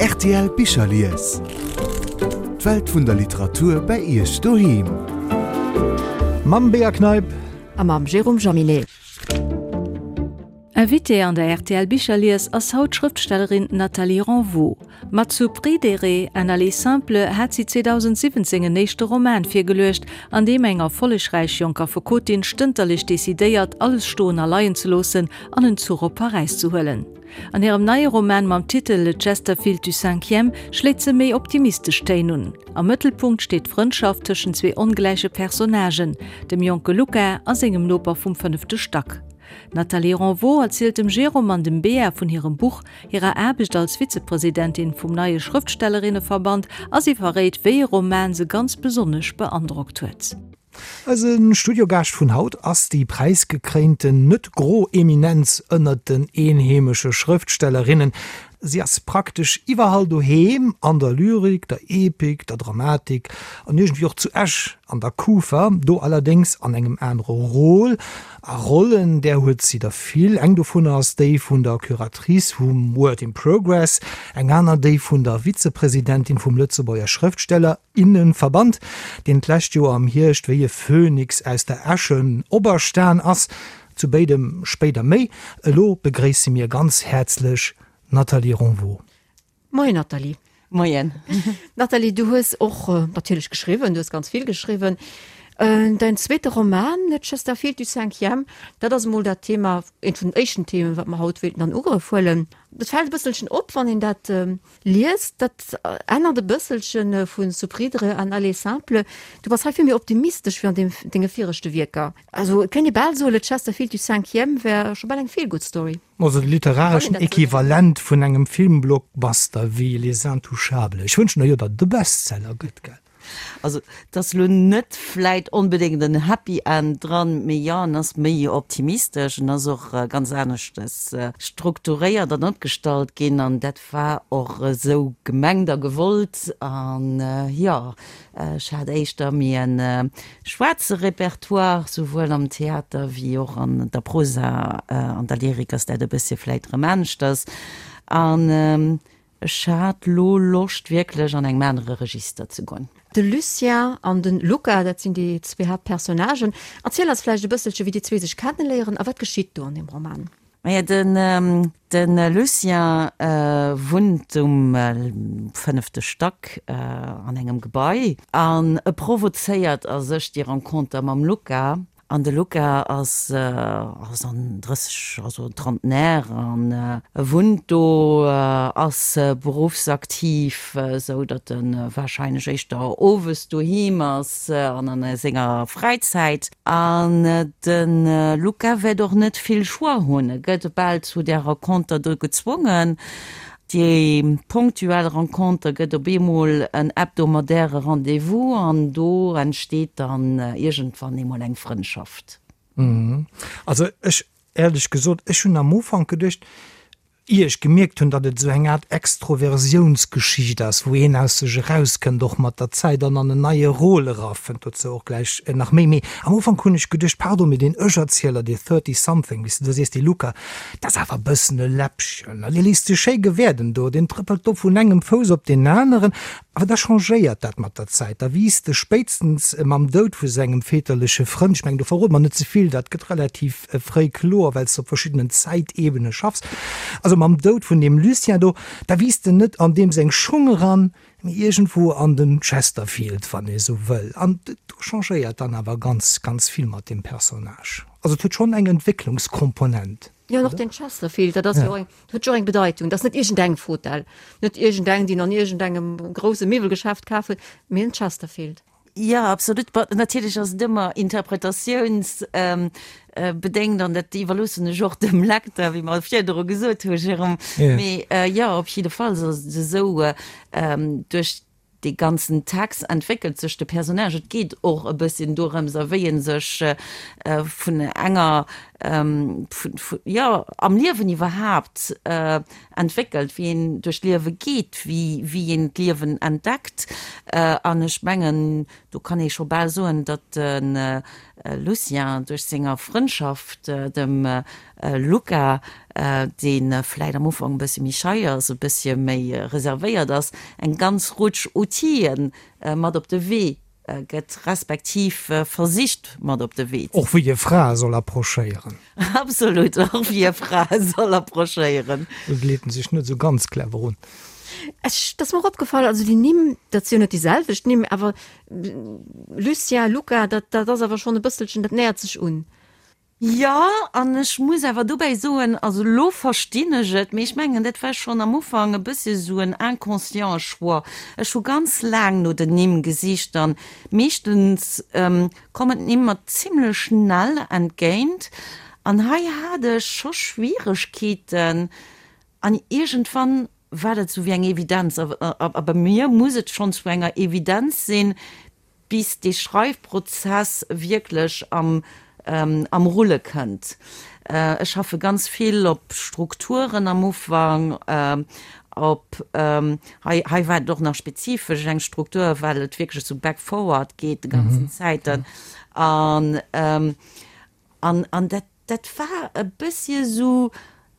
Rtl Bicherlies. D'Welt vun der Literatur bei Iech doheem. Mam Bea Kneip. A mam Jérôme Jaminet. Invitée an der rtl Bicherlies ass haut d'Schrëftstellerin Nathalie Renvaux. Mat Zu Pridere, un aller simple hat si 2017 en éischte Roman virgeluecht, an deem eng erfollegräich jonk Affekotin stënterlech decidéiert, alles stoen a leien ze loossen an en Zuch op Paräis ze huelen. An hirem neie Roman mam Titel Le Chesterfield du cinquième schléit se méi optimistesch Téin un. Am Mëttelpunkt steet d'Frëndschaft tëschent zwee ongläiche Personnagen, dem jonke Luca a sengem Noper vum fënnefte Stack. D'Nathalie Renvaux erzielt dem Jérôme an dem Bea vun hirem Buch, hirer Aarbecht als Vizepresidentin vum neie Schrëftstellerinneverband a si verréit, wéi e Roman se ganz besonnesch beandrockt huet. Eise Studiogaascht vun haut ass déi präisgekréinten net gro Eminenz ënnert den eenheemesche Schrëftstellerinnen. Si ass praktesch iwwerall doheem, an der Lyrik, der Epik, der Dramatik an iergendwéi och zu Esch an der Kufa, do allerdéngs an engem anere Rôle. A Rollen, där huet si der vill. Eng dovunner ass déi vun der Curatrice vum Word in Progress, eng aner déi vun der Vizepresidentin vum Lëtzebuerger Schrëftsteller, innenverband, deen d'lescht Joer am Hierscht wéi e Phönix aus der Äsche operstan ass. Zu béidem spéider méi. Elo begréisse mir ganz häerzlech d'Nathalie Ronvaux. Moien Nathalie. Moien. Nathalie, du hues och natierlech geschriwwen, du hues ganz vill geschriwwen. Däin zweete Roman, Le Chesterfield du cinquième, dat ass emol dat Thema, eent vun den éischten Themen, wat mer haut wéilten an Ugrëff huelen. Dat fält e bësselchen op, wann een dat liest, dat ännert e bësselche vu Soupridre an Aller simple. Du bass hei vill méi optimistesch wéi an deem denge viregte Wierker. Also et kéint ee bal soen, Le Chesterfield du cinquième wär scho bal eng Feel-Good-Story. Also de literareschen Equivalent vun engem Filmblockbuster wéi Les Intouchables. Ech wënschen der jo, datt et e Bestseller gëtt, gell? Also et ass elo net vläit onbedéngt en Happy End dran, mee jo, en ass méi optimistesch, en ass och ganz aneschtes strukturéiert an opgestallt ginn an dat war och esou gemengt a gewollt. An jo, ech hat éischter méi e schwaarze Repertoire, souwuel am Theater wéi och an der Prosa, an der Lyrik ass dat e bëssche vläit erëm aneschters. An Ech hat lo Loscht wierklech an engem anere Register ze goen. De Lucien an de Luca, dat sinn déi zwee Haaptpersonnagen. Erziel eis vläicht e bësselche wéi déi zwee sech kenneléieren a wat geschitt do an deem Roman? Maja, den de Lucien wunnt um fënnefte Stack an engem Gebai an e provozéiert a sech déi Renconter mam Luca. An de Luca ass ass an 30, also Trentenaire an e wunnt do, ass beruffsaktiv, esou datt e warscheinlech éischter owes doheem ass an an senger Fräizäit. An de Luca wäert och net vill Choix hunn, e gëtt bal zu där Renconter do gezwongen. Déi ponktuell Renconter gëtt op eemol en hebdomadaire Rendez-vous an do entsteet dann iergendwann eemol eng Frëndschaft. Also ech, éierlech gesot, ech hunn am Ufank geduecht, ier ech gemierkt hunn, datt et esou eng Aart Extroversiounsgeschicht ass, wou een aus sech erauskënnt, och mat der Zäit an an en neie Rôle erafënnt, dozou och gläich nach méi, mee am Ufank hunn ech geduecht, pardon, mee deen Ech-Erzieler, dee Thirty-something, wéi s de do sees, dee Luca, Dat ass awer e bëssen e Läppchen. Dee léisst sech schéi gewäerden do, deen trëppelt do vun engem Fouss op deen aneren. Awer da changéiert dat mat der Zäit. Da wiisst e spéitstens mam Doud vu sengem väterleche Frënd, ech mengen, do verrode mer net ze vill, dat gëtt relativ fréi kloer, well s de op verschiddenen Zäitebene schaffs, also mam Doud vun deem Lucien do, da wiisst en net an deem seng Schung eran, mee iergendwou an den Chesterfield, wann ee sou wëll. An do changéiert dann awer ganz, ganz vill mat deem Personnage. Also et huet schonn eng Entwécklungskomponent. Jo, an och den Chesterfield, dat ass jo och eng, huet jo och eng Bedeitung. Dat ass net iergendeng Fotell, net iergendeng, déi en an iergendengem grousse Miwwelgeschäft kaf huet, mee en Chesterfield. Jo, absolut. Bon, natierlech ass et ëmmer interpretatiounsbedéngt an dat iwwerloossen ech och dem Lecteur, wéi mer virdru gesot hu, Jérôme. Mee jo, op jidde Fall ass et esou, duerch dee ganzen Text entwéckelt sech de Personnage. Et geet och e bësschen dorëms, a wéi e sech vun enger, jo, am Liewen iwwerhaapt entwéckelt, wéi een duerch d'Liewe geet, wéi wéi een d'Liewen entdeckt. An ech mengen, do kann ee scho bal soen, datt de. Lucien duerch senger Frëndschaft dem Luca, dee vläit am Ufank e bëssche méi schei ass, e bëssche méi reservéiert ass, eng ganz Rutsch Outile mat op de Wee gëtt, respektiv versicht mat op de Wee ze. Och wéi e Frae soll approchéieren. Absolut, och wéi e Frae soll approchéieren. Do leet en sech net esou ganz clever un. Ech, 't ass mer och opgefall, also déi Nimm, dat si jo net déi selwecht Nimm, awer Lucien, Luca, dat, dat ass awer schonn e bësselchen, dat nähert sech un. Jo, an ech muss awer dobäi soen, also elo verstinn ech et, mee ech mengen, dat war schonn am Ufank e bëssche sou en inconsciente Choix. Ech hu ganz laang no den Nimm gesicht an meeschtens kommen d'Nimm mer zimlech schnell entgéint an hei hat ech scho Schwieregkeeten an iergendwann war dat sou wéi eng Evidenz. A bei mir muss et schonn zu enger Evidenz sinn, bis dee Schreifprozess wierklech am am Rulle kënnt. Ech schaffe ganz vill op Strukturen am Ufank, op, hei hei war et och nach spezifesch eng Struktur, well et wierklech esou back forward geet de ganzen Zäiten an an an dat Dat war e bëssche sou,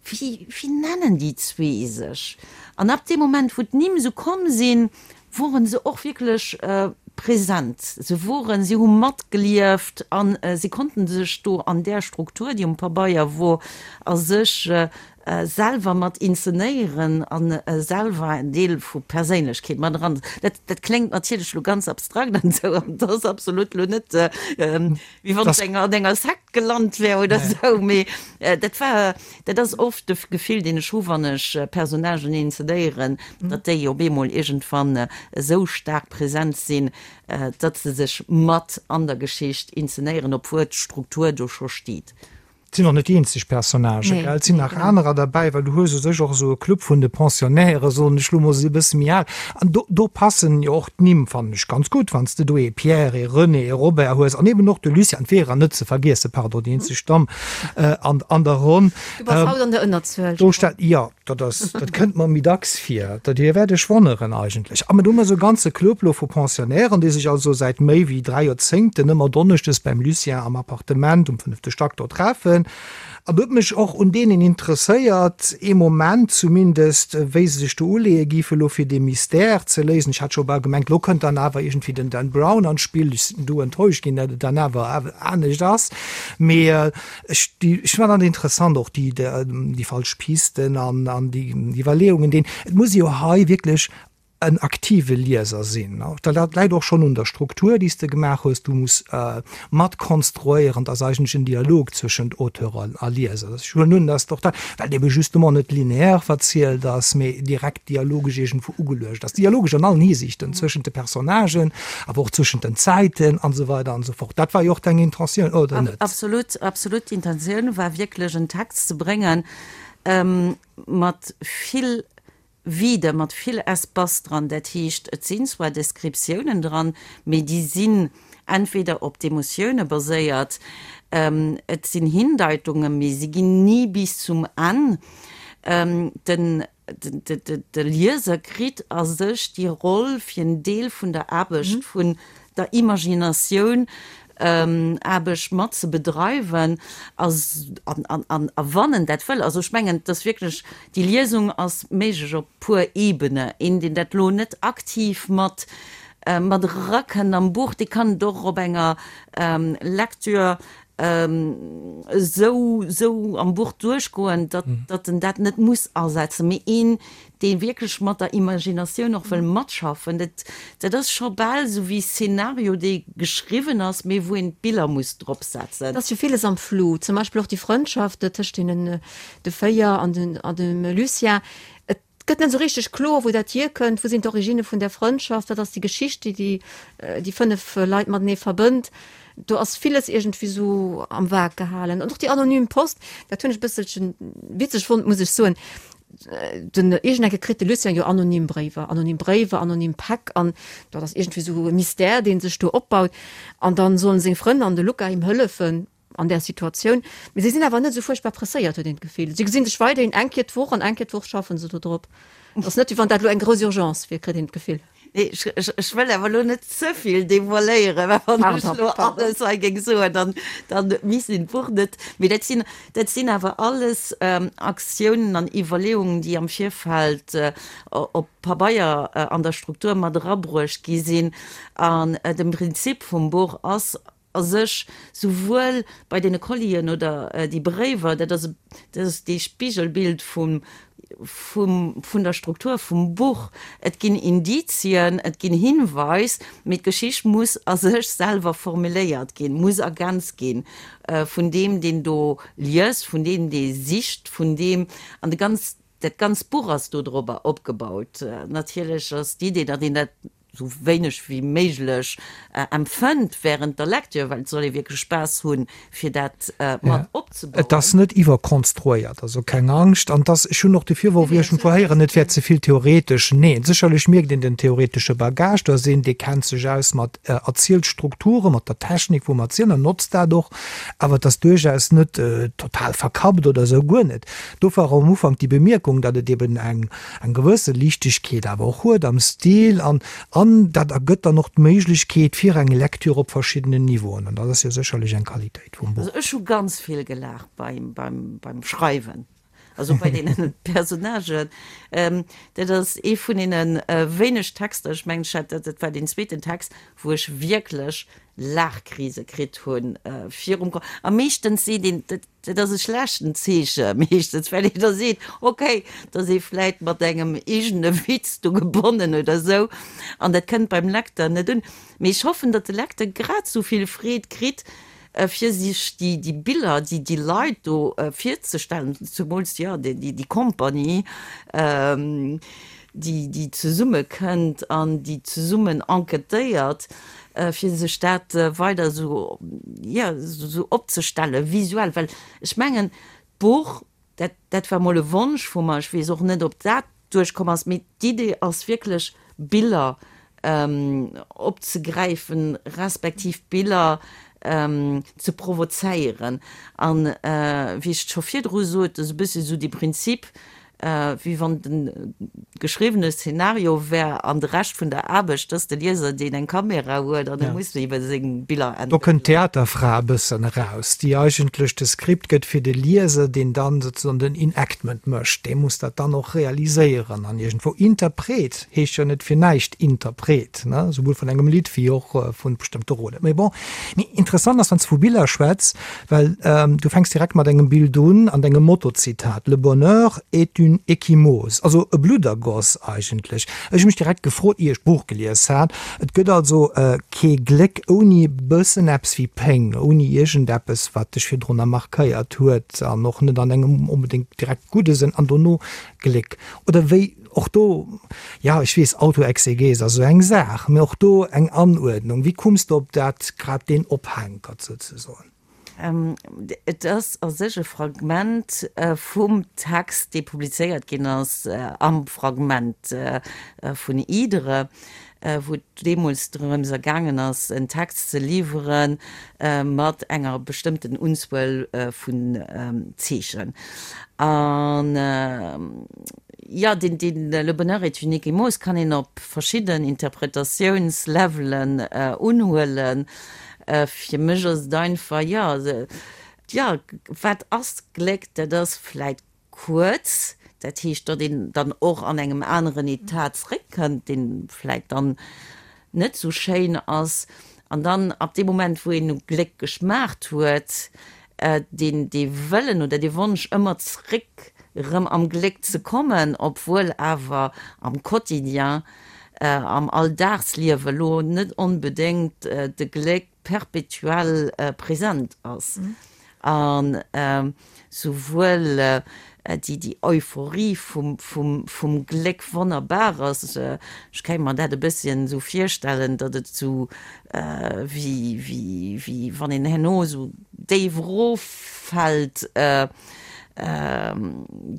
wéi, wéi nennen déi zwee sech? An ab deem Moment, wou d'Nimm sou komm sinn, woren se och wierklech present. Se woren, si hu matgelieft a si konnten sech do an där Struktur, déi um Pabeier wor, a sech selwer mat inzenéieren a selwer en Deel vu Perséinlechkeet mat eran. Dat, dat kléngt natierlech elo ganz abstrakt an esou, an dat ass absolut elo net, wéi wann ech an enger Sekt gelant wär oder esou, mee dat war, dat ass oft de Gefill, deen ech hu wann ech Personnagen inzenéieren, datt déi op eemol iergendwann esou staark present sinn, datt se sech mat an der Geschicht inzenéieren, obwuel d'Struktur do scho steet. Et sinn och net déi eenzeg Personnagen, gell? Et sinn nach anerer derbäi, well du hues u sech och esou e Club vun de Pensionnaires, soen ech lo mol, se si e bësse méi al. An do, do passen jo och d'Nimm, fannen ech, ganz gutt, wann s de do ee Pierre, ee René, ee Robert hues an eben och de Lucien, d'Vera net ze vergiessen, pardon, déi eenzeg Damm an, an der Ronn. Du bass haut an der Ënnerzuel. Do stellt, jo. Dat ass, dat kënnt mer méi dacks vir. Dat Dir wäert Iech wonneren eigentlech. A mir hu mer esou e ganze Club lo vu Pensionnairen, déi sech also säit méi wéi 3 Joerzéngten ëmmer donneschdes beim Lucien am Appartement um fënnefte Stack do treffen. An do huet mech och un deenen interesséiert, ee Moment zumindest, wéi se sech do uleeë géife lo fir dee Mystère ze léisen. Ech hat scho bal gemengt, lo kënnt dann awer iergendwéi den Dan Brown an d'Spill. Ech sinn du enttäuscht ginn, datt et dann awer anescht ass. Mee Ech, déi, ech fannen dat interessant, och déi, déi falsch Pisten an, an déi Iwwerleeungen, deen, et muss ee jo hei wierklech en aktive Lieser sinn. Dat läit och schonn un der Struktur, déi s de gemaach hues. Du muss mat konstruéieren, et ass eigentlech en Dialog zwëschent Auteur a Lieser. Ech huelen un, dass och dat, well et ebe justement net lineaire verzielt ass, mee direkt dialogesch iergendwou ugeluecht ass, dialogesch an allen Hisiichten, zwëschent de Personnagen, awer och zwëschent den Zäiten an esou weider an esou fort. Dat war jo och deng Intentioun, oder net? Absolut, absolut. D'Intentioun war wierklech en Text ze bréngen mat vill Vide, mat vill Espace dran. Dat heescht, et sinn zwar Descriptiounen dran, mee déi sinn entweder op d'Emotioune baséiert, et sinn Hindeitungen, mee si ginn ni bis zum Enn. Den De Lieser kritt a sech déi Roll fir en Deel vun der Aarbecht, vun der Imaginatioun, Aarbecht mat ze bedreiwen a wann en dat wëll. Also ech mengen, et ass wierklech, déi Liesung ass méiglech op puer Ebene. Een, deen dat elo net aktiv mat mat erakënnt am Buch, dee kann et och op enger Lecture esou esou am Buch duerchgoen, datt datt en dat net muss asetzen, mee een, dee wierklech mat der Imaginatioun och wëll matschaffen, dat dat ass scho bal esou wéi Szenario, dee geschriwwen ass, mee wou een d'Biller muss drop setzen. Et ass jo villes am Flou, zum Beispill och déi Frëndschaft tëscht deenen de 4 an den an dem Lucien. Et Et gëtt net esou richteg kloer, wou dat hierkënnt, wou sinn d'Originne vun där Frëndschaft, wat ass déi Geschicht, déi déi déi 5 Leit matenee verbënnt. Do ass villes iergendwéi esou am Vag gehalen. An och déi anonym Post, dat hunn ech e bësselche witzeg fonnt, muss ech soen. Den iergendecke kritt de Lucien jo anonym Bréiwer, anonym Bréiwer, anonym Päck an dat ass iergendwéi esou e Mystère, dee sech do opbaut. An dann sollen seng Frënn an de Luca him hëllefen. an där Situatioun. Mee si sinn awer net esou fuerchtbar presséiert, huet een d'Gefill. Si gesinn sech weiderhin eng Kéier d'Woch an eng Kéier d'Woch schaffen se do drop. Et ass net, wéi wann dat elo eng grouss Urgence wier, kritt een d'Gefill. Nee, ech, ech, ech wëll awer elo net ze vill devoiléieren, well wann ech elo alles hei géing soen, dann, dann misst een d'Buch net. Mee dat sinn, dat sinn awer alles Aktiounen an Iwwerleeungen, déi am Virfeld op Pabeier an der Struktur mat erabruecht gi sinn. An de Prinzip vum Buch ass a sech souwuel bei deene Collien oder déi Bréiwer, dat ass, dat ass dee Spigelbild vum, vum, vun der Struktur vum Buch. Et ginn Indizien, et ginn Hinweis, mee d'Geschicht muss a sech selwer formuléiert ginn, muss ergänzt ginn vun deem, deen do liest, vun deem, dee sicht, vun deem, an de ganz, dat ganzt Buch ass dodrobber opgebaut. Natierlech ass d'Idee, datt een dat sou wéineg wéi méiglech empfënnt während der Lecture, well et soll ee wierklech Spaass hunn, fir dat mat opzebauen. Et ass net iwwerkonstruéiert, also keng Angscht. An et ass, ech hunn och de Virworf iergendwou héieren, et wär ze vill theoretesch. Neen, sécherlech mierkt een den theoretesche Bagage, do ass een, dee kennt sech aus mat Erzielstrukturen, mat der Technik vum Erzielen an notzt dat och, awer et ass duerchaus net total verkappt oder esou, guer net. Dofir och am Ufank déi Bemierkung, datt et eben eng eng gewësse Liichtegkeet awer och huet am Stil an an dat ergëtt dann och d'Méiglechkeet fir eng Lecture op verschiddenen Niveauen an dat ass jo sécherlech eng Qualitéit vum Buch. Also ech hu ganz vill gelaacht beim beim beim Schreiwen, also bei deenen Personnagen. Dat ass ee vun deene wéineg Texter, ech mengen ech hat dat, dat war deen zweeten Text, wou ech wierklech Laachkrise kritt hunn virum Ko. A meeschtens seet een, dat Dat ass e schlechten Zeeche meeschtens, well een da seet, okay, da ass ee vläit mat engem eegene Witz do gebonnen oder esou an dat kënnt beim Lecteur net un. Mee ech hoffen, datt de Lecteur grad esou vill Freed kritt, fir sech déi, déi Biller, déi, déi Leit do virzestellen, zemools, jo, déi, déi Compagnie, déi, déi zesummekënnt an déi zesummen enquêtéiert. fir sech dat weider esou, jo, esou opzestellen, visuell, well ech mengen, d'Buch, dat, dat war mol e Wonsch vu mer, ech weess och net, ob dat duerchkomm ass, mee d'Idee ass wierklech, Biller opzegräifen, respektiv Biller ze provozéieren. An wéi ech et scho virdru sot, esou e bëssi esou dee Prinzip, wéi wann de geschriwwene Szenario wär an de Rescht vun der Aarbecht ass de Lieser, deen eng Kamera huet an e muss ebe seng Biller entwéckelen. Do kënnt d'Theaterfra e bëssen eraus, déi eigentlech de Skript gëtt fir de Lieser, deen dann sozusagen den Enactment mécht. Dee muss dat dann och realiséieren an iergendwou. Interpret heescht jo net fir näischt Interpret, ne, souwuel vun engem Lidd wéi och vu bestëmmte Rollen. Mee bon, mee interessant ass, wann s de vu Biller schwätz, Well du fänks direkt mat engem Bild un an dengem Motto-Zitat, Le bonheur est une ecchymose, also e Bluddergoss eigentlech. Ech hu mech direkt gefrot, ier ech d'Buch gelies hat, et gëtt also kee Gléck ouni e bëssen eppes wéi Péng, ouni iergendeppes, wat dech virdrunner markéiert huet an och net an engem onbedéngt direkt gudde Sënn, an dono Gléck. Oder wéi och do, jo, ech weess, Autoexegese ass esou eng Saach, mee och do eng Anuerdnung. Wéi kumms de op dat, grad deen Ophänkert souzesoen? Et ass a sech e Fragment vum Text, dee publizéiert ginn ass am Fragment vun Idre, wou et deemools drëms ergaangen ass, en Text ze liwwere mat enger bestëmmten Unzuel vun Zeechen. An jo, deen, deen Le bonheur est une ecchymose kann een op verschidden Interpretatiounslevelen unhuelen. Fir mech ass et einfach, jo, jo, wat ass Gléck? Dat ass vläit Kuerz, dat heescht, datt een dann och an engem aneren Etat zréckkënnt, dee vläit dann net esou schéin ass. An dann ab deem Moment, wou een u Gléck geschmaacht huet, deen dee Wëllen oder dee Wonsch ëmmer zréck erëm am Gléck ze kommen, obwuel awer am Quotidien, am Alldagsliewe lo net onbedéngt de Gléck perpetuell present ass. An souwuel déi Euphorie vum Gléck wonnerbar ass, ech kéint mer dat e bësschen esou virstellen, datt et esou wéi wann een herno esou déif eroffält,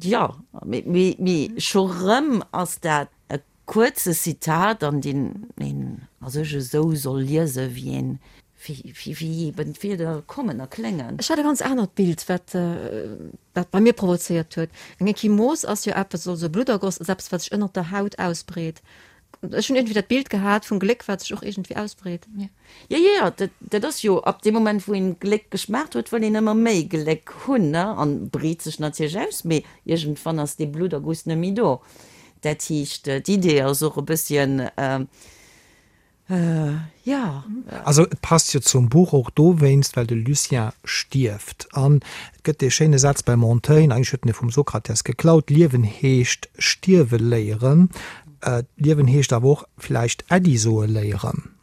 jo, mee scho rëm ass dat E kuerze Zitat, an deen een a sech esou soll liesen, wéi een, wéi eben d'Wierder kommen a kléngen. Ech hat e ganz anert Bild, wat dat bei mir provozéiert huet. Eng Ekchymose ass jo eppes, also e Bluddergoss ass eppes, wat sech ënnert der Haut ausbreet. Ech hunn iergendwéi dat Bild gehat vum Gléck, wat sech och iergendwéi ausbreet. Jo, jo, jo, dat, dat ass jo ab deem Moment, wou een Gléck geschmaacht huet, wëll een ëmmer méi Gléck hunn, ne, an breet sech natierlech aus, mee iergendwann ass dee Blutterguss net méi do. Dat heescht, d'Idee ass och e bësschen, Jo. Also et passt jo zum Buch och dowéinst, well de Lucien stierft. An et gëtt dee schéine Saz beim Montaigne, eigentlech huet en e vum Sokrates geklaut, Liewen heescht stierwe léieren. Liewen heescht awer och vläicht Äddi soe léieren.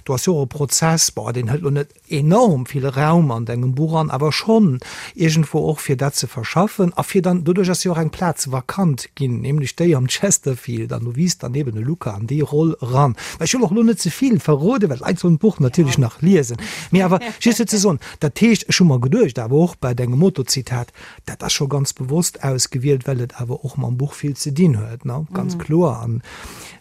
Do ass jo och e Prozess, bon, deen hëlt lo net enorm vill Raum an dengem Buch an, awer schonn iergendwou och fir dat ze verschaffen a fir dann, doduerch ass jo och eng Plaz vakant ginn, nämlech déi am Chesterfield, an do wiisst dann eben e Luca an déi Roll eran. Mä ech wëll och elo net ze vill verroden, well d'Leit sollen d'Buch natierlech nach liesen, mee awer just fir ze soen, dat heescht, ech hu mer geduecht, awer och bei dengem Motozitat, dat ass scho ganz bewosst ausgewielt, well et awer och mam Buch vill ze dinn huet, ne, ganz kloer. An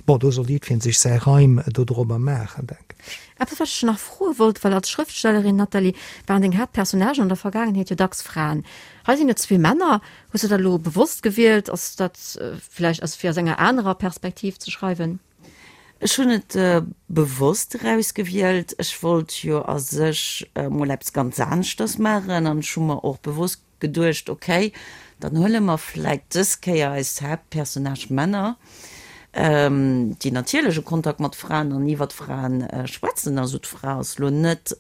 bon, do soll jiddweree sech säi Reim dodrobber maachen, denken ech. Eppes wat ech nach froe wollt, well als Schrëftstellerin, Nathalie, waren deng Haaptpersonnagen an der Vergaangenheet jo dacks Fraen. Hei sinn et zwee Männer. Hues du dat elo bewosst gewielt? Ass dat vläicht ass fir aus enger anerer Perspektiv ze schreiwen? Ech hunn et bewosst erausgewielt. Ech wollt jo a sech mol eppes ganz aneschters maachen an ech hu mer och bewosst geduecht, ok, dann huele mer vläit dës Kéier eis Haaptpersonnage Männer, déi natierlech e Kontakt mat Fraen an iwwert Fraen schwätzen. Also d'Fra ass lo net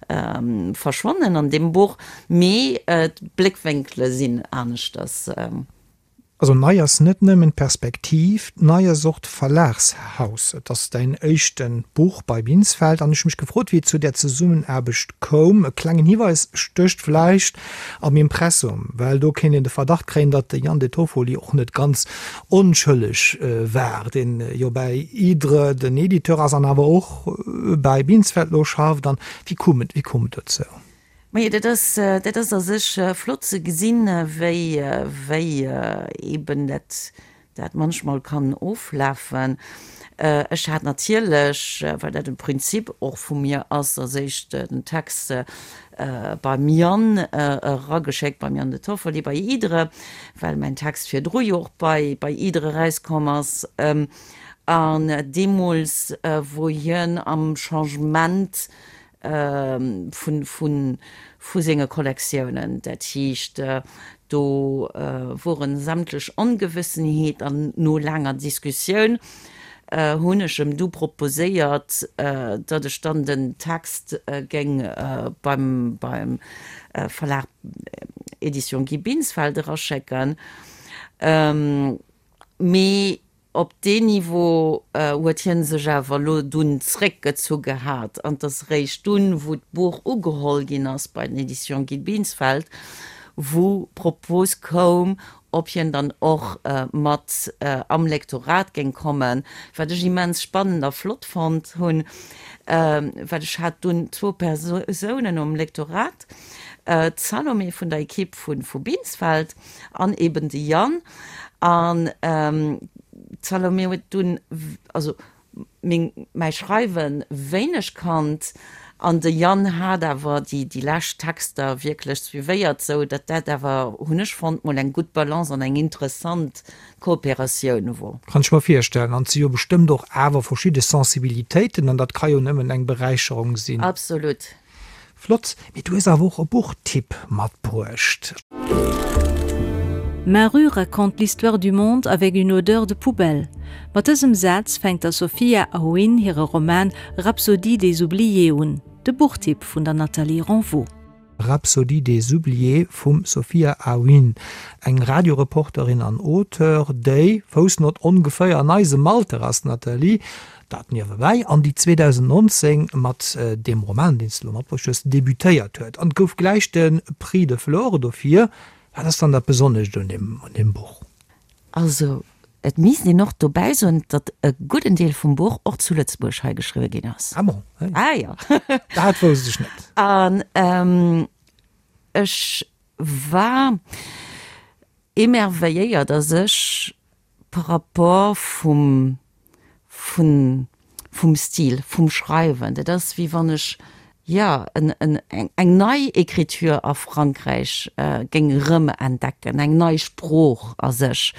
verschwonnen an deem Buch, mee d'Bléckwénkele sinn aneschters. Also nei ass net nëmmen d'Perspektiv, nei ass och d'Verlagshaus. Et ass däin éischten Buch bei Binsfeld an ech hu mech gefrot, wéi et zu där Zesummenaarbecht koum. E klengen Hiweis stécht vläicht am Impressum, well do kéint een de Verdacht kréien, datt de Jan De Toffoli och net ganz onschëlleg war, deen jo bäi Hydre den Editeur ass an awer och bäi Binsfeld lo schafft. An wéi koum et, wéi koum et dozou? Majo, dat ass, dat ass a sech flott ze gesinn, wéi, wéi eeben dat, dat manchmal kann oflafen. Ech hat natierlech, well dat e Prinzip och vu mir ass, als éischt den Text beim Yann erageschéckt, beim Yann De Toffoli bei Hydre, well mäin Text virdru jo och bei, bei Hydre erauskomm ass. An deemools, wor hien am Changement vu senge Kollektiounen. Dat heescht, do woren sämtlech Ongewëssenheet an no laanger Diskussioun hunn ech em du proposéiert, datt ech dann den Text géing beim Verlag Editions Guy Binsfeld eraschécken. Mee Op deen Niveau huet hie sech awer elo dunn zréckgezu gehat an 't ass eréischt dunn, wou d'Buch ugeholl ginn ass bei den Editions Guy Binsfeld, wou d'Propos koum, ob hien dann och mat am Lektorat géing kommen, wat ech immens spannend a flott fonnt hunn, well ech hat dunn zwou Persounen um Lektorat, d'Salomé vun der Equipe vu Binsfeld an eben de Yann. An d'Salomé huet dunn, also meng, mäi Schreiwe wéineg kannt, an de Yann hat awer déi, déi lescht Texter wierklech suivéiert, sou datt dat awer, hunn ech fonnt, mol eng gutt Balance an eng interessant Kooperatioun wor. Kann ech mer virstellen. An et si jo bestëmmt och awer verschidde Sensibilitéiten, an dat ka jo nëmmen eng Beräicherung sinn. Absolut. Flott, mee du hues awer och e Buchtipp matbruecht. Ma rue raconte l'histoire du monde avec une odeur de poubelle. Mat dësem Saz fänkt der Sophia Aoun hire Roman Rhapsodie des oubliés un, de Buchtipp vun der Nathalie Renvaux. Rhapsodie des oubliés vum Sophia Aoun, eng Radioreporterin an Auteur, déi, Foussnott, ongeféier an eisem Alter ass, Nathalie, Dat niewebäi, an déi 2019 mat deem Roman, deen s de elo matbruecht hues, debutéiert huet. An et gouf gläich de Prix de Flore dofir. Wat ass dann dat Besonnescht un deem, un deem Buch? Also, et misst een och dobäi soen, datt e gudden Deel vum Buch och zu Lëtzebuerg hei geschriwwe ginn ass. Ah bon? Ah jo. Dat wousst ech net. An ech war émerveilléiert a sech par rapport vum, vun, vum Stil, vum Schreiwen. Dat ass wéi wann ech, jo, en, en, eng nei Écriture a Frankräich géing erëmentdecken, eng nei Sprooch a sech.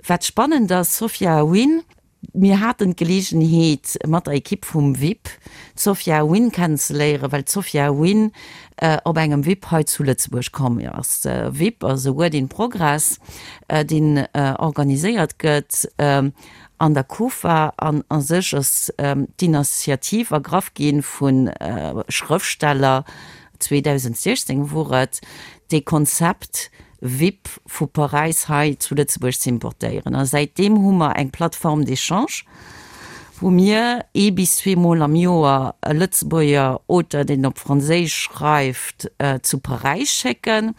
Wat spannend ass, Sophia Wynn. Mir haten d'Geleegenheet mat der Ekipp vum VIP d'Sophia Wynn kennenzeléieren, well d'Sophia Wynn op engem VIP hei zu Lëtzebuerg komm ass. VIP ass e Word in Progress, deen organiséiert gëtt an der Kufa an a sech ass d'Initiativ ergraff gi vu Schrëftsteller, 2016 wor et, dee Konzept VIP vu Paräis hei zu Lëtzebuerg ze importéieren. A säitdeem hu mer eng Plateforme d'échange, wou mir ee bis zweemol am Joer e Lëtzebuerger Auteur, deen op Franséisch schreift, zu Paräis schécken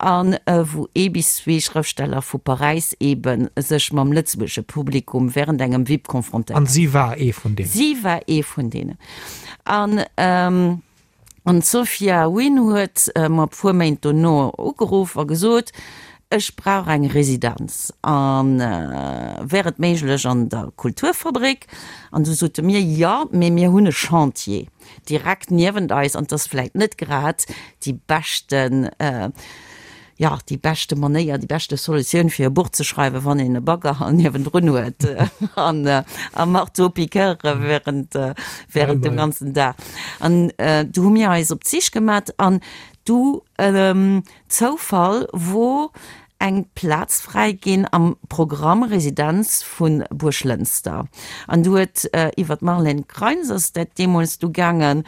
a wou ee bis zwee Schrëftsteller vu Paräis eebe sech mam lëtzebuergesche Publikum während engem VIP confrontéieren. An si war ee vun deenen? Si war ee vun deenen. An. An d'Sophia Wynn huet mer e puer Méint dono ugeruff a gesot, Ech brauch eng Residenz a wär et méiglech an der Kulturfabrik? An du sote mir, Jo, mee mir hunn e Chantier direkt niewent eis an 't ass vläit net grad déi beschten, jo, déi beschte Manéier, déi beschte Solutioun fir e Buch ze schreiwen, wann een e Bagger niewendrun huet an a Marteau-piqueur während, während dem ganzen Dag. An du hu mir eis op d'Sich gemat an du, Zoufall, wor eng Plaz fräi ginn am Programm Residenz vu Buerglënster. An du huet iwwer d'Marlène Kreins ass dat deemools du gaangen,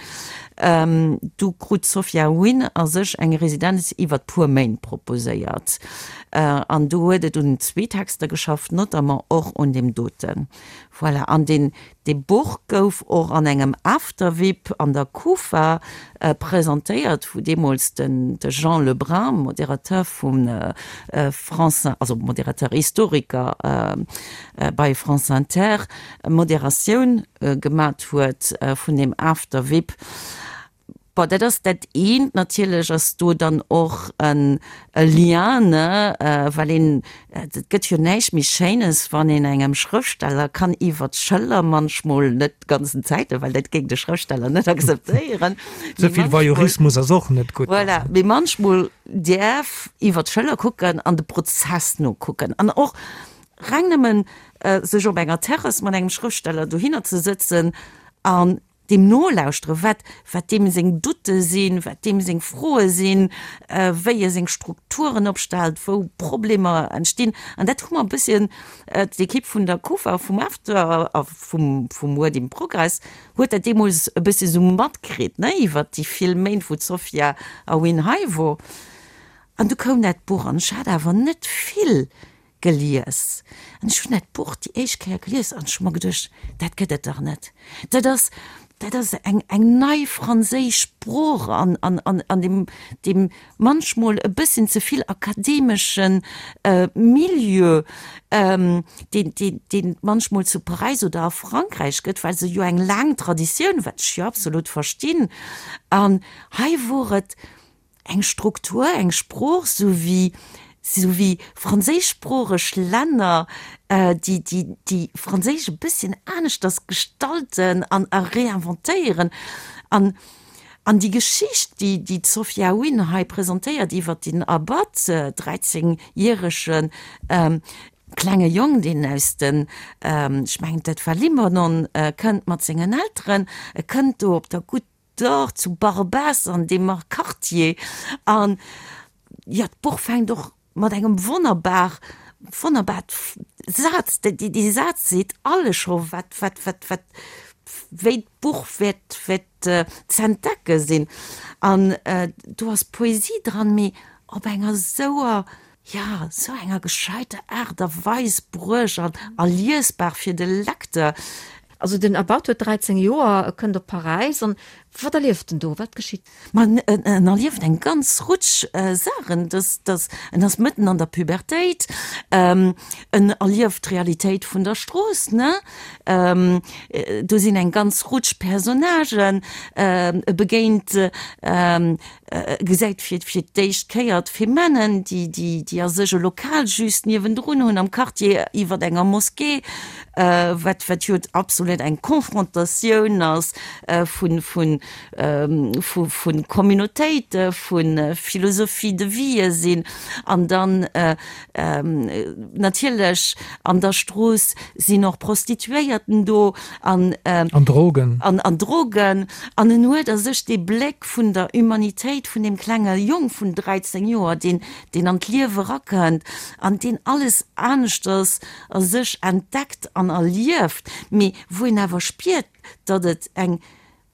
Du krut d'Sophia Wynn a sech eng Residenz iwwert puer Méint proposéiert. An do huet et un zwee Texter geschafft, notamment och un deem doten. Voilà. An deen, dee Buch gouf och an engem After-Vip an der Kufa presentéiert, wou deemools den, de Jean Lebrun, Modérateur vum France, also Modérateur, Historiker bei France Inter, Moderatioun gemat huet vun deem After Vip. Bon, dat ass dat eent. Natierlech ass do dann och en Lien, ne, well een, et gëtt jo näischt méi Schéines, wann een engem Schrëftsteller kann iwwer d'Schëller, manchmol net d'ganzen Zäiten, well dat géing de Schrëftsteller net akzeptéieren, Ze vill Voyeurismus ass och net gutt. Voilà, mee manchmol däerf iwwer d'Schëller kucken an de Prozess nokucken an och Reng nëmmen sech op enger Terrass mat engem Schrëftsteller dohinner ze sëtzen an deem nolauschteren, wat, wat deem seng Doutte sinn, wat deem seng Froe sinn, wéi e seng Strukturen opstellt, wou Problemer entstinn. An dat hu mer e bësschen, d'Ekipp vun der Kufa, vum After a vum, vum Word in Progress huet dat deemools e bëssi esou matkritt, ne, iwwert déi vill Méint, wou d'Sophia Aoun hei wor. An du koum dat Buch an ech hat awer net vill Gelies. An ech hunn dat Buch déi éischt Kéier gelies an ech hu mer geduecht, dat gëtt et dach net. Dat ass, dat ass eng, eng nei franséisch Sprooch an, an, an, an deem, deem manchmol e bësschen ze vill akademeschen Milieu, deen, deen, deen et manchmol zu Paräis oder a Frankräich gëtt, well se jo eng laang Traditioun, wat ech jo absolut verstinn. An hei wor et eng Struktur, eng Sprooch, sou wéi, sou wéi franséischsproocheg Länner, déi, déi, déi Franséisch e bësschen aneschters gestalten an a réinventéieren. An, an déi Geschicht, déi, déi d'Sophia Wynn hei presentéiert iwwert den Abad, 13 järege klenge Jong, deen aus den, ech mengen dat war Libanon, kënnt mat sengen Elteren, e kënnt do op der Goutte Dor zu Barbès an deem Quartier an jo d'Buch fänkt och mat engem wonnerbar wonnerbar Saz, dee Saz seet alles scho wat wat wat wat wéi d'Buch wäert wäert z'entdecke sinn an do ass Poesie dran, mee op enger esouer jo esou enger gescheiter Aart a Weis bruecht an a liesbar fir de Lecteur. Also den Abad huet 13 Joer, e kënnt op Paräis an wat erlieft en do? Wat geschitt? Ma en erlieft eng ganz Rutsch Saachen. Dass, dass, en ass mëtten an der Pubertéit, en erlieft d'Realitéit vun der Strooss, ne? Do sinn eng ganz Rutsch Personnagen, e begéint Gesäit fir fir d'éischt Kéier d'Femennen, déi déi déi a sech e Lokal just niewendrun hunn am Quartier iwwert enger Moskee, wat wat jo absolut eng Confrontatioun ass vun vun. vu Communautéite, vu Philosophie de vie sinn an dann natierlech an der Strooss sinn och Prostituéierten do an An Drogen. An Drogen. An en huet a sech dee Bléck vun der Humanitéit vun deem klenge Jong vun 13 Joer, deen, deen an d'Liewe erakënnt an deen alles aneschters a sech entdeckt an erlieft, mee wou een awer spiert, datt et eng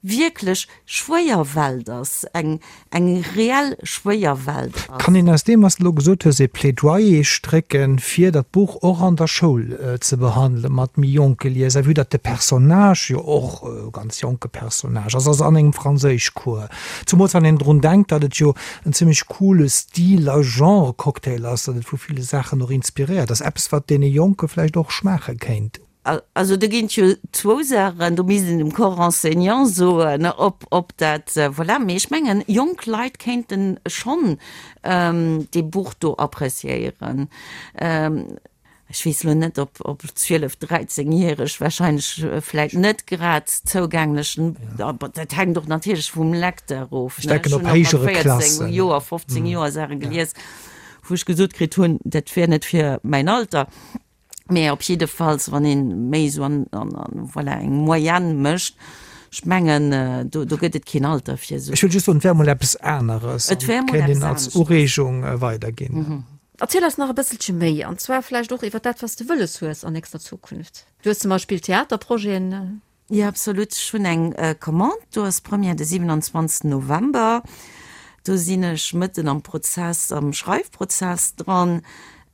wierklech schwéier Welt ass, eng, eng reell schwéier Welt ass. Kann een aus deem, wat s de elo gesot hues, ee Plädoyer strécken, fir dat Buch och an der Schoul ze behandelen, mat méi jonke Lieser, vue datt de Personnage jo och e ganz jonke Personnage ass, also an engem Franséischcours, zumools wann een drun denkt, datt et jo en zimmlech coole Stil a Genre-Cocktail ass, datt et vu ville Saachen och inspiréiert ass, eppes wat deene Jonke vläicht och schmaache kéint. Also do ginn et jo zwou Saachen, do misst een dem Corps enseignant soen, ob, ob dat, voilà. Mee ech mengen, jonk Leit kéinte schonn dee Buch do appréciéieren. Ech weess elo net, ob, ob 12-, 13-Järeg wahrscheinlech vläit net grad zougänglech, dat hänkt och natierlech vum Lecteur of. Ech denken op héijere Klassen. 14 Joer, 15 Joer Saache gelies, wou ech gesot kritt hunn, dat wär net fir mäin Alter. Mä op jiddefalls, wann ee méi esou an, an, an, voilà, eng Moyenne mécht, ech mengen, do, do gëtt et keen Alter fir esou. Ech wëll just soen, et wär emol eppes aneres an et kéint een als Ureegung weiderginn. Erziel eis nach e bësselche méi, an zwar vläicht och iwwer dat, wat s de wëlles hues an nächster Zukunft. Du hues zum Beispill Theaterprojeten. Jo, absolut. Ech hunn eng Commande, do ass Première de 27 November. Do sinn ech mëtten am Prozess, am Schreifprozess dran.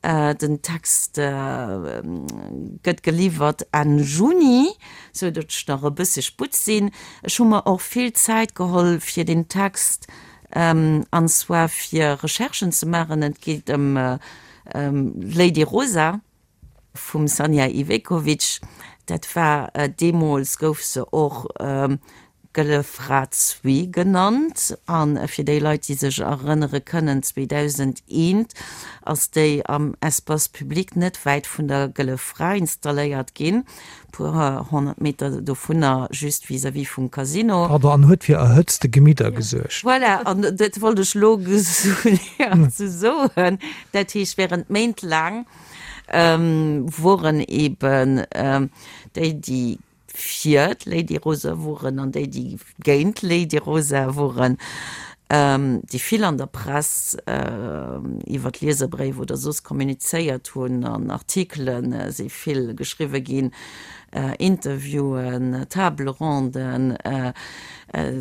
Den Text gëtt geliwwert Enn Juni, sou datt ech nach e bësse Sputt sinn. Ech hu mer och vill Zäit geholl fir deen Text, an zwar fir Recherchen ze maachen. Et geet ëm Lady Rosa. Vum Sanja Ivekovic, dat war deemools gouf se och Gëlle Fra Zwee genannt. A fir déi Leit, déi sech erënnere kënnen, 2001 ass déi am Espace public net wäit vun der Gëlle Fra installéiert ginn, puer 100 Meter dovunner, just vis-à-vis vum Casino. Pardon, an huet fir erhëtzte Gemidder gesuergt. Voilà, an dat wollt ech elo soen. Dat heescht, während Méint laang woren eben déi, déi fir d'Lady Rosa woren an déi, déi géint d'Lady Rosa woren, déi vill an der Press iwwer Lieserbréif oder soss kommunizéiert hunn, an Artikele si vill geschriwwe ginn, Interviewen, Table ronden.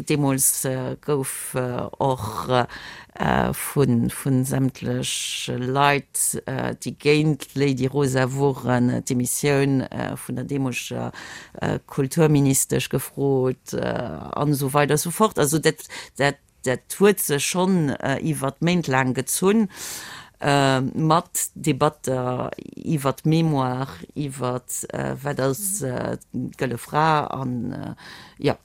Deemools gouf och vu sämtlech Leit, déi géint d'Lady Rosa woren, d'Demissioun vun der deemoleger Kulturministesch gefrot an esou weider esou fort. Also dat, dat, dat huet sech schonn iwwert Méint laang gezunn, mat Debatter iwwert d'Mémoire, iwwert wat ass d'Gëlle Fra an, jo,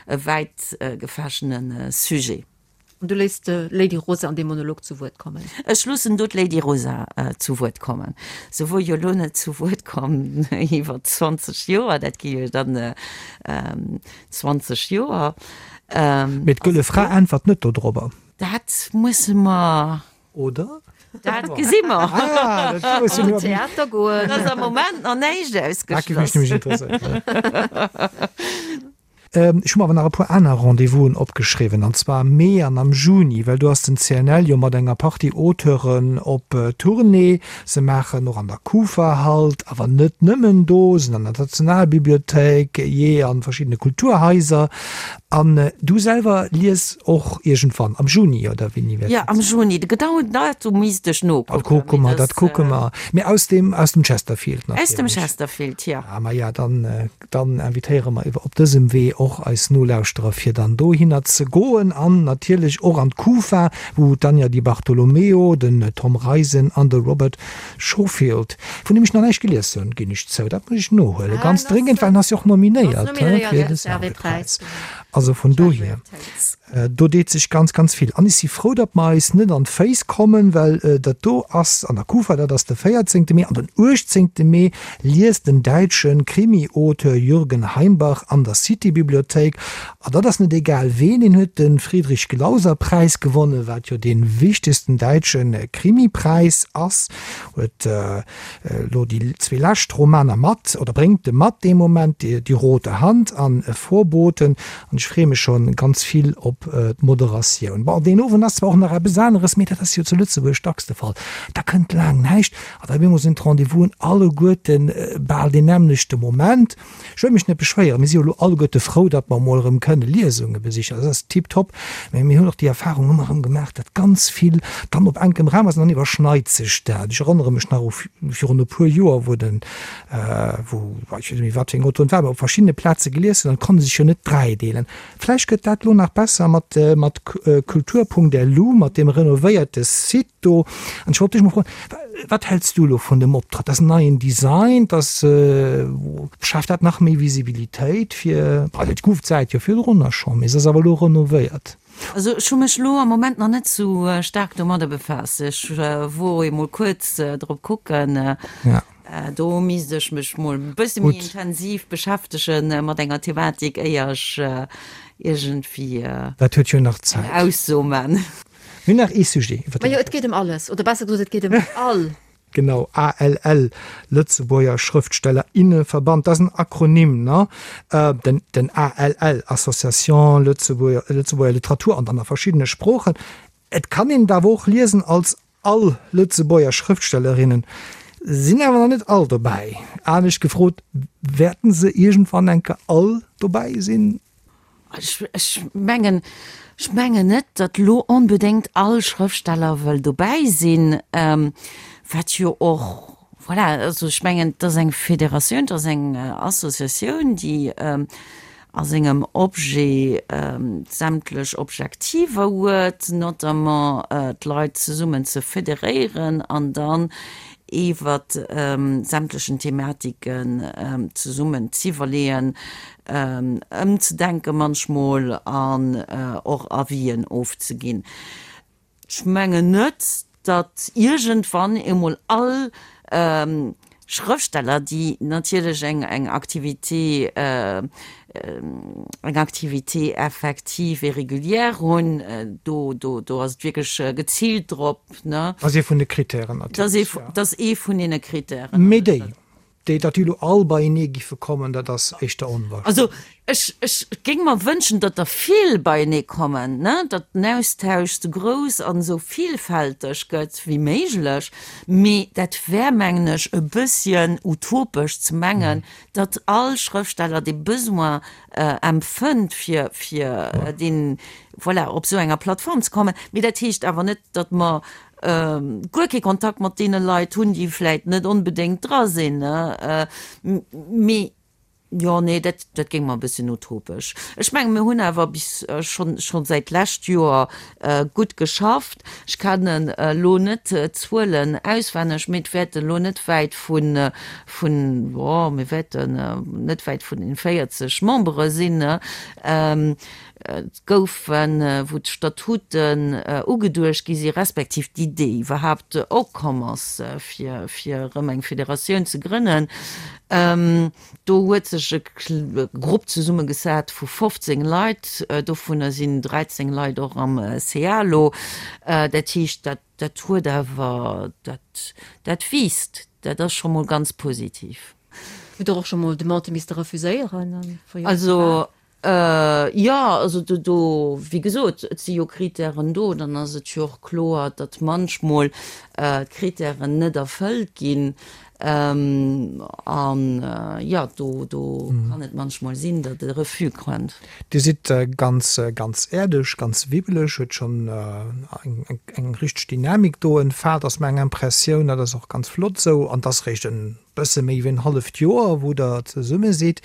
e wäit gefächene Sujet. An du léiss d'Lady Rosa an deem Monolog zu Wuert kommen? Ech loossen do d'Lady Rosa zu Wuert kommen. Se wor jo elo net zu Wuert komm iwwer 20 Joer, dat gi jo dann 20 Joer. Mee d'Gëlle Fra äntwert net dodrobber. Dat musse mer. Oder? Dat gesi mer. Ah, dat musse mer. Theater goen. Dat ass am Moment nach näischt ausgeschloss. Dat géif mech nämlech interesséieren. Ech hu mer awer nach e puer aner Rendez-vousen opgeschriwwen, an zwar am Mee an am Juni, well do ass den CNL jo mat enger Partie Auteuren op Tournée. Se maachen och an der Kufa Halt, awer net nëmmen do, sinn an der Nationalbibliothéik, jee an verschiddene Kulturhaiser. An du selwer lies och iergendwann am Juni, oder wéini wäert dat sinn? Jo, am Juni. De genauen Datum misst ech nokucken. Dat kucke mer, dat kucke mer. Mee aus dem, aus dem Chesterfield natierlech. Aus dem Chesterfield, jo. Ah, maja, dann Dann invitéiere mer iwwer op dësem Wee och eis Nolauschterer fir dann dohinner ze goen an natierlech och an d'Kufa, wou d'Anja Di Bartolomeo, den Tom Reisen an de Robert Schofield, vun deem ech nach näischt gelies hunn, ginn ech zou, dat muss ech nohuelen, ganz dréngend, well en ass jo och nominéiert fir de Servais-Präis. Also vun dohier, do deet sech ganz, ganz vill. An ech si frou, datt mer eis net an d'Féiss kommen, well dat do ass an der Kufa, dat ass de 14. Mee. An den 18. Mee liest den däitsche Krimi-Auteur Jürgen Heimbach an der City-Bibliothéik. An dat ass net egal ween, deen huet de Friedrich-Glauser-Präis gewonnen, wat jo dee wichtegsten däitsche Krimi-Präis ass, huet elo déi zwee lescht Romaner mat, oder bréngt e mat dee Moment, Die rote Hand an Vorboten, an ech freeë mech scho ganz vill op d'Moderatioun. Bon, deen Owend ass zwar och nach eppes aneres, mee dat ass jo zu Lëtzebuerg dacks de Fall, da kënnt laang näischt an da op eemol sinn d'Rendez-vousen alleguerte bal deen nämmlechte Moment. Ech wëll mech net beschwéieren, mir si jo elo alleguerte frou, datt mer emol erëm kënne Liesunge besichen, dat ass tiptop, mä mir hunn och déi Erfahrung ëmmer erëm gemaach, datt ganz vill dann op enkem Raum ass an dann iwwerschneit sech dat. Ech erënnere mech nach u virun e puer Joer, wou den, wou, ech weess net méi wat fir eng Autoren et war, mä op verschiddene Plaze gelies hunn an et konnte sech jo net dräideelen. Vläicht gëtt dat elo nach besser mat, mat kultur.lu, mat deem renovéierte Site do. An ech wollt dech mol froen, Wat häls du elo vun dem Optrëtt? Dat ass en neien Design, dat schaaft dat nach méi Visibilitéit fir, also et gouf d'Säit jo virdrunner schonn, mee se ass awer elo renovéiert. Also ech hu mech elo am Moment nach net sou staark domadder befaasst. Ech wor emol kuerz drop kucken. Do misst ech mech mol e bësse méi intensiv beschäftege mat enger Thematik, éier ech iergendwéi Dat huet jo nach Zäit. eng Ausso man. Mir hunn nach ee Sujet, iwwer dee Majo, et geet ëm alles, oder besser gesot, et geet ëm all. Genau, ALL, Lëtzebuerger Schrëftsteller inneverband, dat ass en Akronym, ne? Den, den ALL, Association Lëtzebuerger, Lëtzebuerger Literatur an dann a verschiddene Sproochen. Et kann een et awer och liesen als All Lëtzebuerger Schrëftstellerinnen sinn awer nach net all dobäi. Anescht gefrot, wäerten se iergendwann eng Kéier all dobäi sinn? Ech mengen, ech mengen net, datt elo onbedéngt all Schrëftsteller wëll dobäi sinn, wat jo och, voilà, also ech mengen, et ass eng Federatioun, et ass eng Associatioun, déi a sengem Objet sämtlech Objektiver huet, notamment d'Leit zesummen ze federéieren an dann iwwer sämtlechen Thematiken zesummen z'iwwerleeën, ëmzedenke manchmol an och Avisen ofzeginn. Ech mengen net, datt iergendwann emol all Schrëftsteller, déi natierlech eng eng Activité, eng Activité effective et régulière hunn, do do do ass et wierklech geziilt drop, ne? Ass ee vun de Kritären natierlech, jo. Dat ass ee vun deene Kritären. Mee déi, Déi, datt déi elo all beienee giffe kommen, dat ass éischter onwahrscheinlech. Also ech, ech géing mer wënschen, datt der vill beienee kommen, ne, datt den Austausch sou grouss an esou villfälteg gëtt wéi méiglech. Mee dat wär, mengen ech, e bësschen utopesch ze mengen, datt all Schrëftsteller dee Besoin empfënnt, fir, fir deen, voilà, op esou enger Plattform ze kommen. Mee dat heescht awer net, datt mer guer kee Kontakt mat deene Leit hunn, déi vläit net onbedéngt dra sinn. Mee jo, nee, dat, dat géing mer e bësschen utopesch. Ech mengen, mir hunn awer bis schonn, schonn säit d'lescht Joer gutt geschafft. Ech kennen elo net d'Zuelen auswenneg, mee et wäerten elo net wäit vun, vun, jo, mir wäerten net wäit vun den 40 Membere sinn. Et goufen, wou d'Statuten ugeduecht gi si respektiv d'Idee iwwerhaapt opkomm ass, fir fir erëm eng Federatioun ze grënnen, do huet sech e Grupp zesummegesat vu 15 Leit, dovunner sinn 13 Leit och am CA elo. Dat heescht, dat dat huet awer, dat dat wiisst, dat ass scho mol ganz positiv. Hutt Der och scho mol Demandë misste refuséieren? Also Jo, also do, do, wéi gesot, et si jo Kritären do, dann ass et jo och kloer, datt manchmol d'Kritären net erfëllt ginn. An jo, do, do kann et manchmol sinn, datt e Refus kënnt. Dir sidd ganz, ganz äerdeg, ganz wibbeleg, huet schonn eng, eng richteg Dynamik do entfaalt, ass meng Impressioun. Dat ass och ganz flott esou. An et ass réischt e bësse méi wéi en halleft Joer, wou Der zesumme sidd.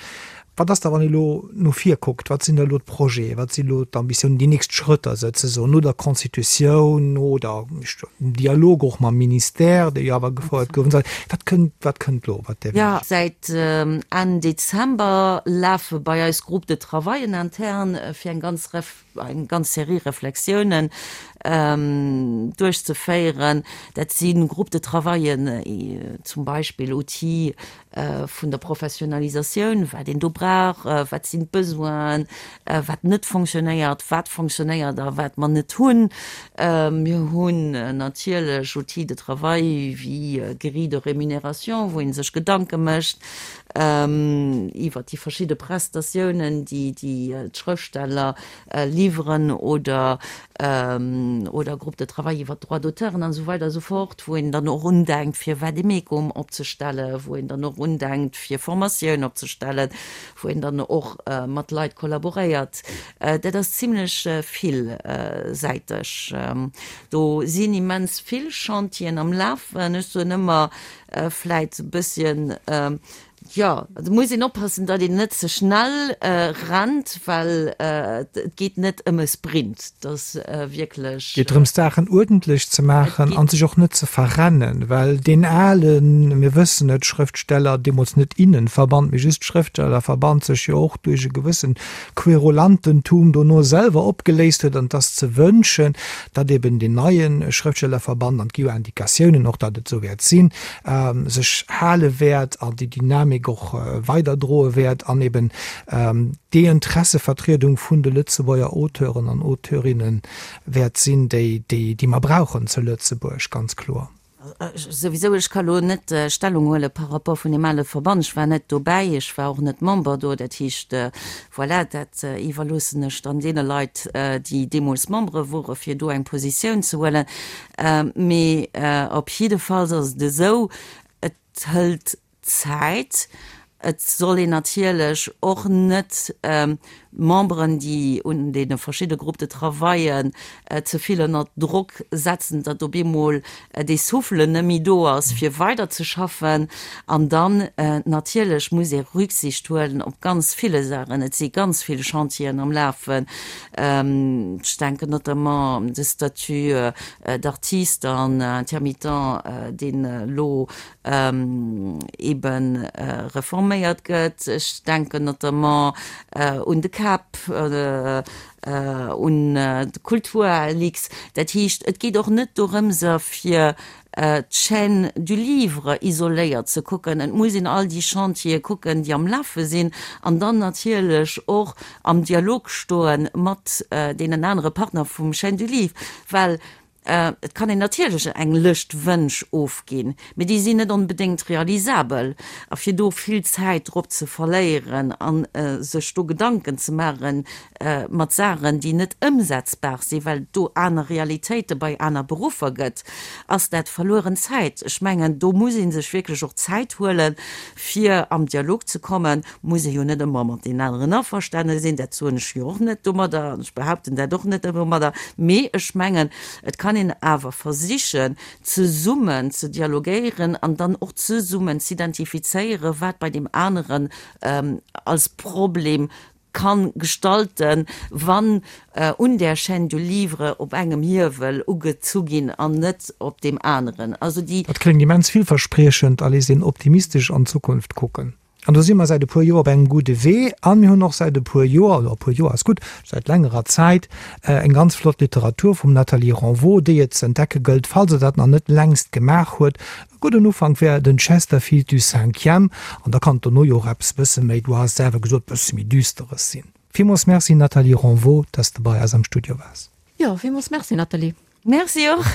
Wat ass da, wann ee elo no vir kuckt, wat sinn da elo d'Projete, wat sinn elo d'Ambitiounen, déi nächst Schrëtter souzesoen no der Constitutioun, no der, dem Dialog och mam Ministère, dee jo awer gefouert gouf, wat kënnt, wat kënnt elo, wat däerf een. Säit Enn Dezember lafe bei eis Groupes de travaillen intern fir eng ganz eng ganz Serie Reflexiounen duerchzeféieren. Dat si Groupes de travaillen, zum Beispill Outils vun der Professionalisatioun, wat een do brauch, wat sinn d'Besoinen, wat net fonctionnéiert, wat fonctionnéiert a wat mer net hunn. Mir hunn natierlech Outils de travail wéi Grille de rémunération, wou ee sech Gedanke mécht iwwert déi verschidde Prestatiounen, déi d'Schrëftsteller liwweren oder oder Groupe de travail iwwert d'Droits d'auteuren an esou weider esou fort, wou een dann och undenkt fir Vademecum opzestellen, wou een dann och undenkt fir Formatioun opzestellen, wou een dann och mat Leit kollaboréiert. Dat ass zimlech villsäiteg. Do sinn immens vill Chantieren am Lafen. Ech soen ëmmer vläit e bësschen, Jo, et muss een oppassen, datt een net ze schnell rennt, well et geet net ëm e Sprint. Et ass wierklech. Et geet drëms, d'Saachen uerdentlech ze maachen an sech och net ze verrennen, well deen alen, mir wëssen et, Schrëftsteller, deemools net Innenverband, mee just Schrëftstellerverband, sech jo och duerch e gewëssen Querulantentum dono selwer opgeléist huet. An et ass ze wënschen, datt eben deen neie Schrëftstellerverband, an et gi jo Indikatiounen och, datt et esou wäert sinn, sech hale wäert an déi Dynamik och weiderdroe wäert an eben déi Interessevertriedung vun de Lëtzebuerger Auteuren an Auteurinnen wäert sinn, déi déi mer brauchen zu Lëtzebuerg, ganz kloer. Souwisou, ech ka lo net Stellung huele par rapport vun deem ale Verband. Ech war net dobäi, ech war och net Member do. Dat heescht, voilà, dat iwwerloossen ech dann deene Leit, déi deemools Membere wore fir do eng Positioun ze huelen. Mee op jiddefalls ass et esou, et hëlt Zäit. Et soll een natierlech och net d'Memberen, déi un deene verschidde Groupes de travaillen ze vill ënner Drock setzen, datt op eemol dee Souffle net méi do ass, fir weiderzeschaffen. An dann natierlech muss ee Rücksicht huelen op ganz ville Saachen. Et si ganz vill Chantieren am Lafen. Ech denken notamment de Statut d'artiste an intermittent, deen elo ebe reforméiert gëtt. Ech denken notamment un de CAP, un de Kulturlix. Dat heescht, et geet och net dorëmser, fir d'Chaîne du livre isoléiert ze kucken. Et muss een all déi Chantiere kucken, déi am Lafe sinn, an dann natierlech och am Dialog stoe mat deenen anere Partner vum Chaîne du livre, well et kann een natierlech eng Lëscht Wënsch ofginn, mee déi sinn net onbedéngt realisabel. A fir do vill Zäit drop ze verléieren a sech do Gedanken ze maachen mat Saachen, déi net ëmsetzbar sinn, well et do aner Realitéite bei aner Beruffer gëtt, ass dat verlueren Zäit. Ech mengen, do muss ee sech wierklech och Zäit huelen, fir am Dialog ze kommen. Muss ee jo net ëmmer mat deenen aneren averstane sinn, dat soen ech jo och net domadder an ech behaupten dat och net domadder, mee ech mengen, et kann een awer versichen, zesummen ze dialogéieren an dann och zesummen z'identifizéieren, wat bei deem aneren als Problem kann gestalten, wann un där Chaîne du livre op engem Hiewel ugezu ginn an net op deem aneren. Also déi. Dat kléngt immens villverspriechend a léisst een optimistesch an d'Zukunft kucken. An do si mer säit e puer Joer op engem gudde Wee a mir hunn och säit e puer Joer, oder e puer Joer ass gutt, säit längerer Zäit eng ganz flott Literatur vum Nathalie Renvaux, déi et ze entdecke gëllt, falls Der dat nach net längst gemaach huet. E gudden Ufank wär den Chesterfield du Cinquième, an da kann et dono jo och eppes bësse méi, du has et selwer gesot, bësse méi Düsteres sinn. Villmools Merci Nathalie Renvaux, dass de bei eis am Studio waars. Jo, villmools Merci Nathalie. Merci och.